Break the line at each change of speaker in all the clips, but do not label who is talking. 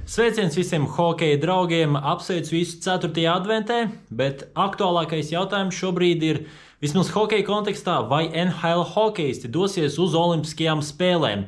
Sveiciens visiem hokeja draugiem, apsveicu visu 4. adventē, bet aktuālākais jautājums šobrīd ir, vismaz hokeja kontekstā, vai NHL hokeisti dosies uz Olimpiskajām spēlēm.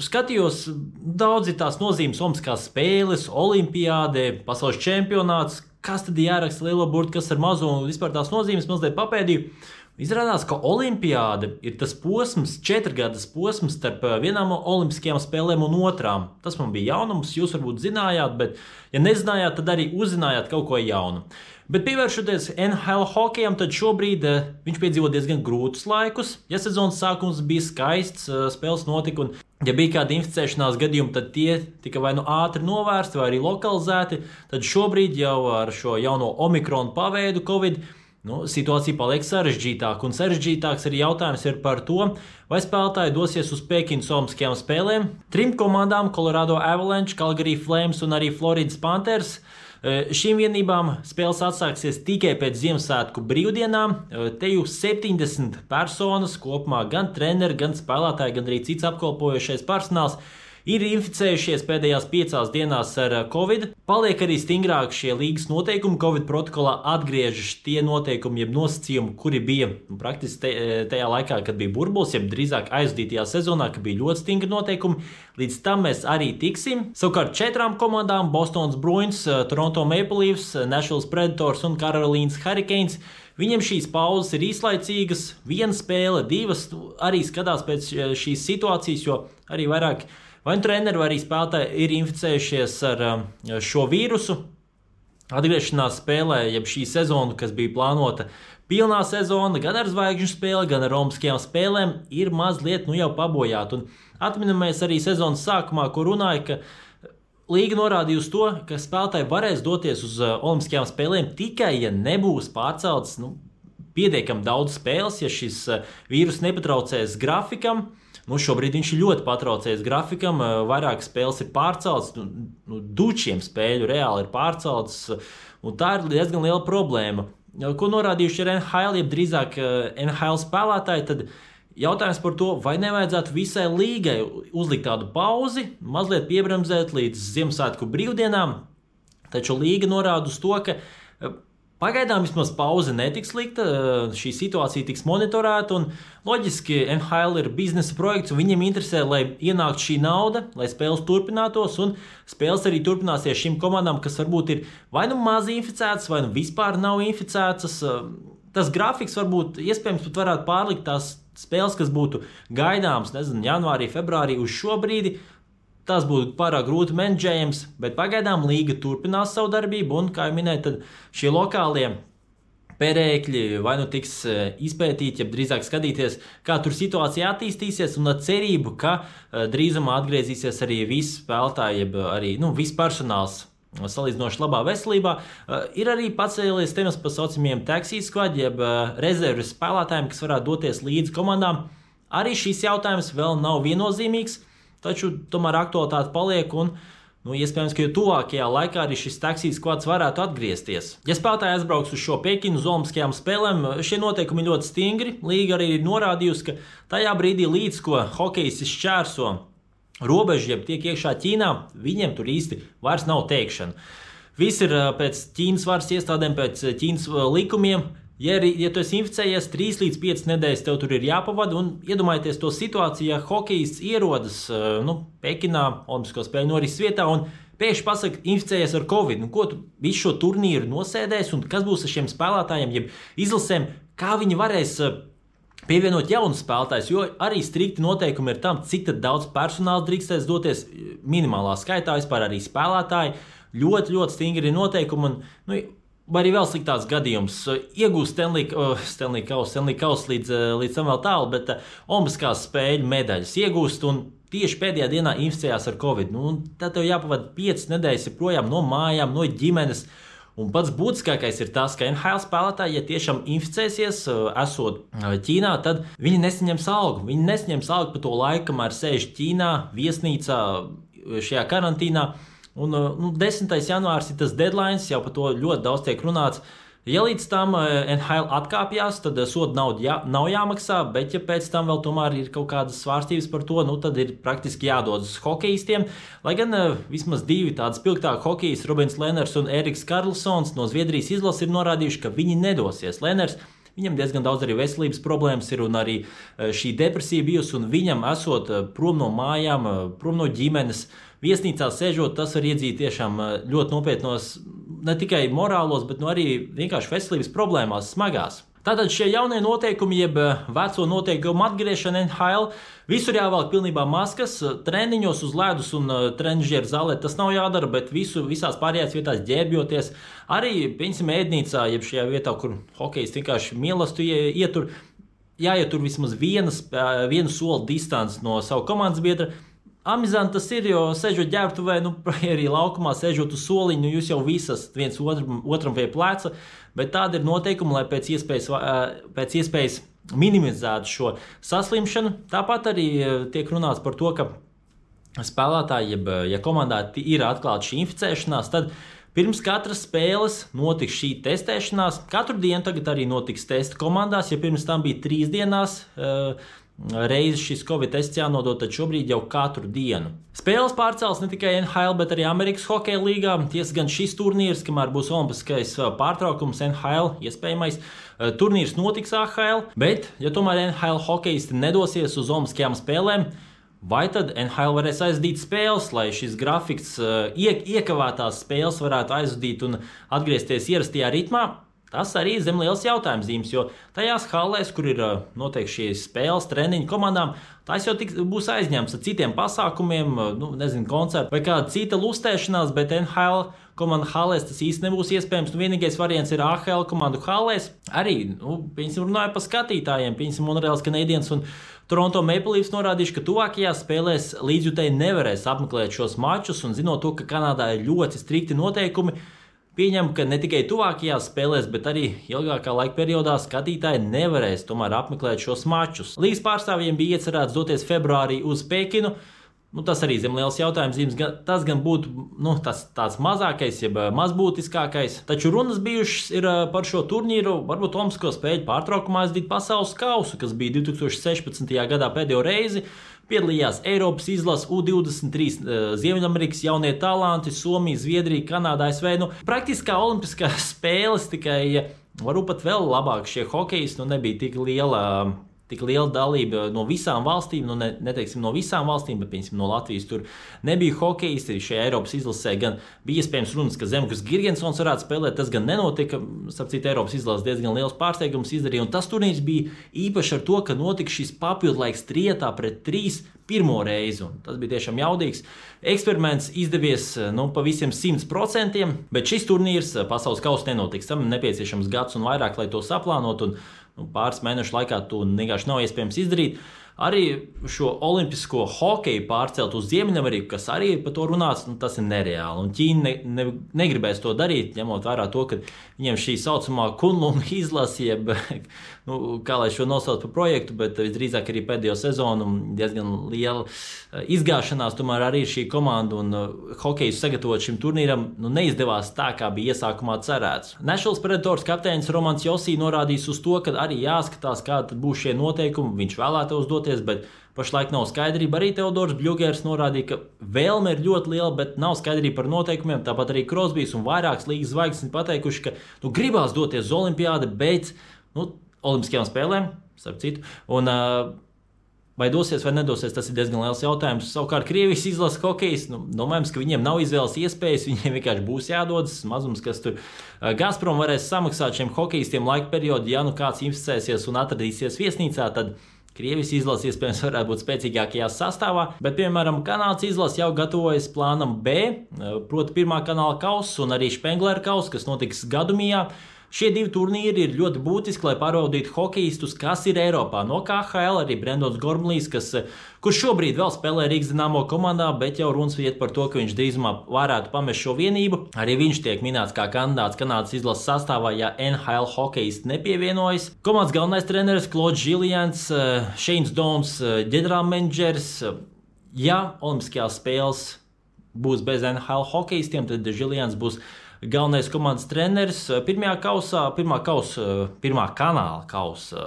Skatījos daudz tās nozīmes, Olimpiskās spēles, Olimpiāde, pasaules čempionāts, kas tad jāraksta lielo burtu, kas ar mazo un vispār tās nozīmes mazliet papēdīju. Izrādās, ka Olimpiāde ir tas posms, 4-gadas posms starp vienām olimpiskajām spēlēm un otrām. Tas man bija jaunums, jūs varbūt zinājāt, bet ja nezinājāt, tad arī uzzinājāt kaut ko jaunu. Bet pievēršoties NHL hokejam, tad šobrīd viņš piedzīvo diezgan grūtus laikus. Ja sezonas sākums bija skaists, spēles notika un ja bija kādi inficēšanās gadījumi, tad tie tika vai nu ātri novērsti vai arī lokalizēti, tad šobrīd jau ar šo jauno Omikronu paveidu Covid situācija paliek sarežģītāka, un sarežģītāks arī jautājums ir par to, vai spēlētāji dosies uz Pekinas Olimpiskajām spēlēm. 3 komandām, Colorado Avalanche, Calgary Flames un arī Floridas Panthers, šīm vienībām spēles atsāksies tikai pēc Ziemassvētku brīvdienām. Te jau 70 personas kopumā, gan treneri, gan spēlētāji, gan arī cits apkalpojošais personāls, ir inficējušies pēdējās 5 dienās ar Covid. Paliek arī stingrāk šie līgas noteikumi. Covid protokolā atgriežas tie noteikumi, jeb nosacījumi, kuri bija praktiski tajā laikā, kad bija burbulis, jeb drīzāk aizvadītajā sezonā, kad bija ļoti stingri noteikumi. Līdz tam mēs arī tiksim. Savukārt 4 komandām, Bostonas Bruins, Toronto Maple Leafs, Nashville Predators un Carolīnas Hurricanes, viņiem šīs pauzes ir īslaicīgas, 1 spēle, 2 arī skatās pēc šīs situācijas, jo arī vairāk vai treneri vai arī spēlētāji ir inficējušies ar šo vīrusu. Atgriešanās spēlē, jeb šī sezona, kas bija plānota pilnā sezona, gan ar zvaigžņu spēli, gan ar olimpiskajām spēlēm, ir mazliet jau pabojāta. Un atminamies arī sezonas sākumā, kur runāja, ka līga norādīja uz to, ka spēlētāji varēs doties uz olimpiskajām spēlēm tikai, ja nebūs pārceltas pietiekami daudz spēles, ja šis vīrus nepatraucēs grafikam. Šobrīd viņš ir ļoti patraucējis grafikam, vairāk spēles ir pārceltas, dučiem spēļu reāli ir pārceltas, un tā ir diezgan liela problēma. Ko norādījuši ir NHL, jeb drīzāk NHL spēlētāji, tad jautājums par to, vai nevajadzētu visai līgai uzlikt tādu pauzi, mazliet piebremzēt līdz Ziemassvētku brīvdienām, taču līga norāda uz to, ka pagaidām vismaz pauze netiks likta, šī situācija tiks monitorēta, un loģiski NHL ir biznesa projekts, un viņiem interesē, lai ienāktu šī nauda, lai spēles turpinātos, un spēles arī turpināsies šīm komandām, kas varbūt ir vai nu maz inficētas, vai nu vispār nav inficētas. Tas grafiks varbūt iespējams pat varētu pārlikt tās spēles, kas būtu gaidāmas, janvārī, februārī uz šo brīdi. Tas būtu pārāk grūti menedžējams, bet pagaidām līga turpinās savu darbību, un, kā jau minēju, tad šie lokālie perēkļi vai nu tiks izpētīti, ja drīzāk skatīties, kā tur situācija attīstīsies, un ar cerību, ka drīzumā atgriezīsies arī visi spēlētāji, jeb arī viss personāls salīdzinoši labā veselībā. Ir arī pacēlies temats par saucamiem taxi squad, jeb rezerves spēlētājiem, kas varētu doties līdz komandām. Arī šīs jautājums vēl nav viennozīmīgs. Taču tomēr aktualitāte paliek un iespējams, ka jau tuvākajā laikā arī šis taxi squads varētu atgriezties. Ja spēlētāji aizbrauks uz šo Pekinu uz Olimpiskajām spēlēm, šie noteikumi ļoti stingri. Līga arī ir norādījusi, ka tajā brīdī līdz ko hokejisti šķērso robežu, jeb tiek iekšā Ķīnā, viņiem tur īsti vairs nav teikšana. Viss ir pēc Ķīnas varas iestādēm, pēc Ķīnas likumiem. Ja tu esi inficējies 3 līdz 5 nedēļas, tev tur ir jāpavada, un iedomājieties to situāciju, ja hokejists ierodas Pekinā, Olimpisko spēļu norises vietā, un pēkšņi pasaka, inficējies ar Covid. Ko tu visu šo turnīru nosēdēs, un kas būs ar šiem spēlētājiem, jeb izlasēm, kā viņi varēs pievienot jaunus spēlētājus, jo arī strikti noteikumi ir tam, cik daudz personāla drīkstēs doties minimālā skaitā, vispār arī spēlētāji. Ļoti, ļoti stingri noteikumi, un vai arī vēl sliktāks gadījums. Iegūst Stanley Kausu līdz tam vēl tālu, bet Olimpiskās spēļu medaļas iegūst un tieši pēdējā dienā inficējās ar Covid. Tad tev jāpavada 5 nedēļas projām no mājām, no ģimenes. Un pats būtiskākais ir tas, ka NHL spēlētāji, ja tiešām inficēsies, esot Ķīnā, tad viņi nesaņems algu. Viņi nesaņems algu par to laiku, kamēr sēž Ķīnā, viesnīcā, šajā karantīnā. Un 10. janvārs ir tas deadline, jau par to ļoti daudz tiek runāts. Ja līdz tam NHL atkāpjas, tad soda nauda nav jāmaksā, bet ja pēc tam vēl tomēr ir kaut kādas svārstības par to, tad ir praktiski jādodas uz hokejistiem. Lai gan vismaz divi tādi spilgtāki hokejisti, Robins Lehnerts un Eriks Karlsons no Zviedrijas izlases ir norādījuši, ka viņi nedosies. Lehnerts, viņam diezgan daudz arī veselības problēmas ir un arī šī depresija bijusi, un viņam esot prom no mājām, prom no ģimenes, viesnīcā sēžot, tas var iedzīt tiešām ļoti nopietnos, ne tikai morālos, bet arī vienkārši veselības problēmās smagās. Tātad šie jaunie noteikumi, jeb veco noteikumu atgriešana NHL, visur jāvelk pilnībā maskas, treniņos uz ledus un trenižieru zālē tas nav jādara, bet visās pārējās vietās ģērbjoties. Arī, piemēram, ēdnīcā, jeb šajā vietā, kur hokejisti vienkārši mīlestību ietur, jāietur vismaz vienu soli distanci no savu komandas biedra. Amizanti tas ir, jo sēžot ģērbtuvē, arī laukumā sēžot uz soliņu, jūs jau visas viens otram pie pleca, bet tāda ir noteikuma, lai pēc iespējas minimizētu šo saslimšanu. Tāpat arī tiek runāts par to, ka spēlētāji, ja komandā ir atklāta šī inficēšanās, tad pirms katras spēles notiks šī testēšanās. Katru dienu tagad arī notiks testi komandās, ja pirms tam bija 3 dienās reizi šis Covid tests jānodod, tad šobrīd jau katru dienu. Spēles pārcels ne tikai NHL, bet arī Amerikas hokeja līgā. Tiesa gan šis turnīrs, kamēr būs olimpiskais pārtraukums NHL, iespējamais, turnīrs notiks AHL, bet, ja tomēr NHL hokejisti nedosies uz olimpiskajām spēlēm, vai tad NHL varēs aizdīt spēles, lai šis grafiks iekavētās spēles varētu aizdīt un atgriezties ierastajā ritmā? Tas arī ir zem liels jautājums zīmes, jo tajās hallēs, kur ir noteikti šīs spēles, treniņu komandām, tās jau būs aizņemts ar citiem pasākumiem, koncertu vai kāda cita lustēšanās, bet NHL komanda hallēs tas īsti nebūs iespējams. Vienīgais variants ir AHL komandu hallēs. Arī, runāja par skatītājiem, Montreals Canadiens un Toronto Maple Leafs norādījuši, ka tuvākajās spēlēs līdzjutēji nevarēs apmeklēt šos mačus, un zinot to, ka Kanādā ir ļoti strikti noteikumi, pieņem, ka ne tikai tuvākajās spēlēs, bet arī ilgākā laika periodā skatītāji nevarēs tomēr apmeklēt šos mačus. Līgas pārstāvjiem bija iecerēts doties februārī uz Pekinu. Tas arī zem liels jautājums zīmes. Tas gan būtu tāds mazākais, jeb mazbūtiskākais. Taču runas bijušas ir par šo turnīru, varbūt Olimpisko spēļu pārtraukumā aizdīt pasaules kausu, kas bija 2016. gadā pēdējo reizi. Piedalījās Eiropas izlase U23, Ziemeļamerikas jaunie talanti, Somija, Zviedrija, Kanāda, ASV. Praktiskā olimpiskās spēles, tikai varbūt pat vēl labāk šie hokejisti, nebija tik liela dalība no visām valstīm, neteiksim no visām valstīm, bet piemēram no Latvijas tur nebija hokejisti. Šajā Eiropas izlasē gan bija iespējams runas, ka Zemgus Girgensons varētu spēlēt, tas gan nenotika. Sapcīt, Eiropas izlases diezgan liels pārsteigums izdarīja, un tas turnīrs bija īpaši ar to, ka notika šis papildlaiks trietā pret 3 pirmo reizi, un tas bija tiešām jaudīgs eksperiments, izdevies pa visiem 100%, bet šis turnīrs pasaules kausa nenotiks. Tam nepieciešams gads un vairāk, lai to saplānot, un pāris mēnešu laikā to vienkārši nav iespējams izdarīt. Arī šo olimpisko hokeju pārcelt uz Ziemeļameriku, kas arī ir par to runāts, tas ir nereāli. Un Ķīna negribēs to darīt, ņemot vērā to, ka viņiem šī saucamā Kunlun izlase, jeb, kā lai šo nosauc par projektu, bet visdrīzāk arī pēdējo sezonu diezgan liela izgāšanās, tomēr arī šī komanda un hokeju sagatavot šim turnīram neizdevās tā, kā bija iesākumā cerēts. Nashville Predators kapteinis Romans Josī norādījis uz to, ka arī jāskatās, kādi būs šie noteikumi. Viņš vēlētos doties, bet pašlaik nav skaidrība. Arī Teodors Bļugers norādīja, ka vēlme ir ļoti liela, bet nav skaidrība par noteikumiem. Tāpat arī Krosbijs un vairākas līgas zvaigznes pateikuši, ka gribās doties uz olimpiādi, bet olimpiskajām spēlēm, starp citu. Un, vai dosies vai nedosies, tas ir diezgan liels jautājums. Savukārt Krievijas izlases hokejs, domājams, ka viņiem nav izvēles iespējas, viņiem vienkārši būs jādodas. Mazums, kas tur Gazprom varēs samaksāt šiem hokejistiem laika periodu, ja kāds inficēsies un atradīsies viesnīcā, tad Krievijas izlase iespējams varētu būt spēcīgākajā sastāvā, bet, piemēram, Kanādas izlase jau gatavojas plānam B, proti pirmā kanāla kausa un arī Špenglera kausa, kas notiks Gadumijā. Šie divi turnīri ir ļoti būtiski, lai pārbaudītu hokejistus, kas ir Eiropā. No KHL arī Brendons Gormlīs, kurš šobrīd vēl spēlē Rīgas Dinamo komandā, bet jau runas iet par to, ka viņš drīzumā varētu pamest šo vienību. Arī viņš tiek minēts kā kandidāts Kanādas izlases sastāvā, ja NHL hokejisti nepievienojas. Komandas galvenais treneris Claude Jullians, Shanes Dons, ģenerālmenedžers. Ja olimpiskajās spēles būs bez NHL hokejistiem, tad Jullians būs galvenais komandas treneris. Pirmā kanāla kausa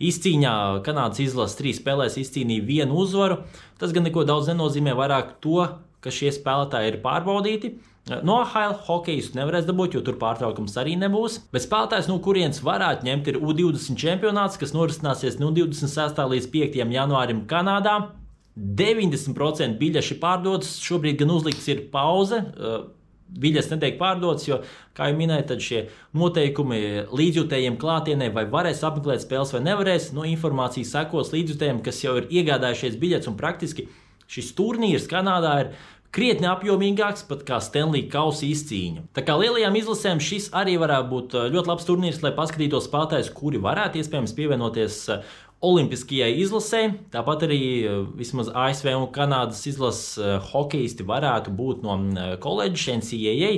izcīņā Kanādas izlase 3 spēlēs izcīnīja 1 uzvaru. Tas gan neko daudz nenozīmē, vairāk to, ka šie spēlētāji ir pārbaudīti. No AHL hokejistu nevarēs dabūt, jo tur pārtraukums arī nebūs. Bet spēlētājs, no kurienes varētu ņemt, ir U20 čempionāts, kas norisināsies no 26. līdz 5. janvārim Kanādā. 90% biļešu pārdotas, šobrīd gan uzlikts ir pauze. Biļetes netiek pārdotas, jo, kā jau minēju, tad šie noteikumi līdzjutējiem klātienē vai varēs apmeklēt spēles vai nevarēs. No informācijas sekos līdzjutējiem, kas jau ir iegādājušies biļetes, un praktiski šis turnīrs Kanādā ir krietni apjomīgāks pat kā Stanley kausa izcīņa. Tā kā lielajām izlasēm šis arī varētu būt ļoti labs turnīrs, lai paskatītos spēlētājus, kuri varētu iespējams pievienoties olimpiskajai izlasē. Tāpat arī vismaz ASV un Kanādas izlases hokejisti varētu būt no koledžas NCAA.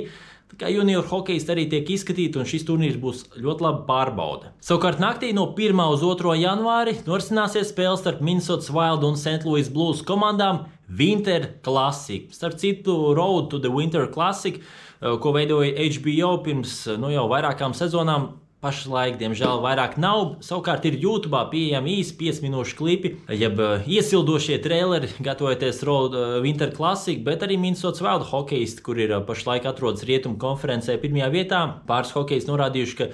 Tā kā junior hokejisti arī tiek izskatīti, un šis turnīrs būs ļoti laba pārbaude. Savukārt naktī no 1. uz 2. janvāri norisināsies spēles starp Minnesotas Wild un St. Louis Blues komandām Winter Classic. Starp citu, Road to the Winter Classic, ko veidoja HBO pirms jau vairākām sezonām, pašlaik, diemžēl, vairāk nav. Savukārt ir YouTube pieejami īsi 5 minūšu klipi, jeb iesildošie traileri, gatavojoties Road Winter Classic, bet arī Minnesotas Wild hokejisti, kur ir pašlaik atrodas rietumu konferencē 1. vietā. Pāris hokejisti norādījuši, ka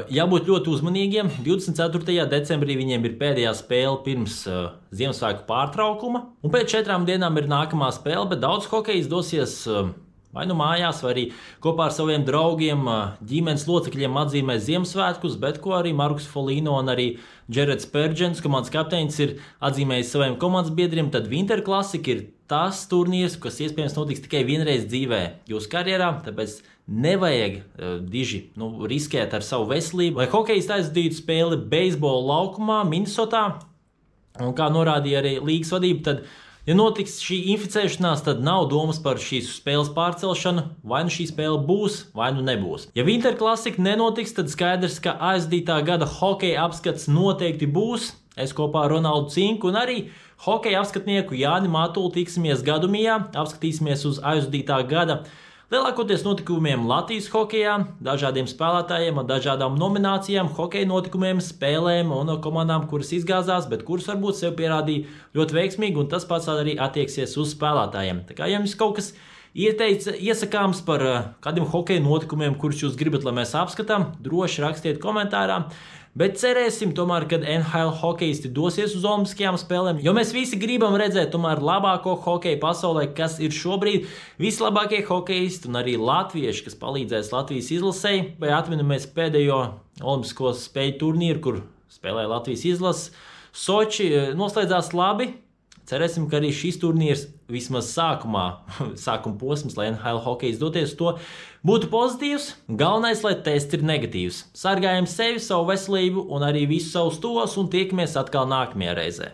jābūt ļoti uzmanīgiem. 24. decembrī viņiem ir pēdējā spēle pirms Ziemassvētku pārtraukuma, un pēc 4 dienām ir nākamā spēle, bet daudz hokejisti dosies vai nu mājās, vai arī kopā ar saviem draugiem, ģimenes locekļiem atzīmē Ziemassvētkus, bet ko arī Markus Folīno un arī Džerets Pērģens, komandas kapteinis, ir atzīmējis saviem komandas biedriem. Tad Winter Classic ir tas turnīrs, kas iespējams notiks tikai vienreiz dzīvē jūsu karjerā, tāpēc nevajag diži riskēt ar savu veselību. Lai hokejisti aizdītu spēli beisbola laukumā Minnesotā, un kā norādīja arī līgas vadība, tad ja notiks šī inficēšanās, tad nav domas par šīs spēles pārcelšanu. Vai nu šī spēle būs, vai nu nebūs. Ja Winter Classic nenotiks, tad skaidrs, ka aizdītā gada hokeja apskats noteikti būs. Es kopā ar Ronaldu Cinku un arī hokeja apskatnieku Jāni Matulu tiksimies Gadumijā, apskatīsimies uz aizdītā gada lielākoties notikumiem Latvijas hokejā, dažādiem spēlētājiem un dažādām nominācijām, hokeja notikumiem, spēlēm un komandām, kuras izgāzās, bet kuras varbūt sev pierādīja ļoti veiksmīgi, un tas pats arī attieksies uz spēlētājiem. Tā kā jums kaut kas iesakāms par kādiem hokeja notikumiem, kurus jūs gribat, lai mēs apskatām, droši rakstiet komentārā. Bet cerēsim tomēr, kad NHL hokejisti dosies uz olimpiskajām spēlēm, jo mēs visi gribam redzēt tomēr labāko hokeju pasaulē, kas ir šobrīd vislabākie hokejisti un arī latvieši, kas palīdzēs Latvijas izlasei. Vai atminamies pēdējo olimpisko spēļu turnīru, kur spēlēja Latvijas izlase. Soči noslēdzās labi. Cerēsim, ka arī šis turnīrs vismaz sākuma posms, lai NHL hokejs doties to, būtu pozitīvs. Galvenais, lai tests ir negatīvs. Sargājam sevi, savu veselību un arī visus savus tos, un tiekamies atkal nākamajā reizē.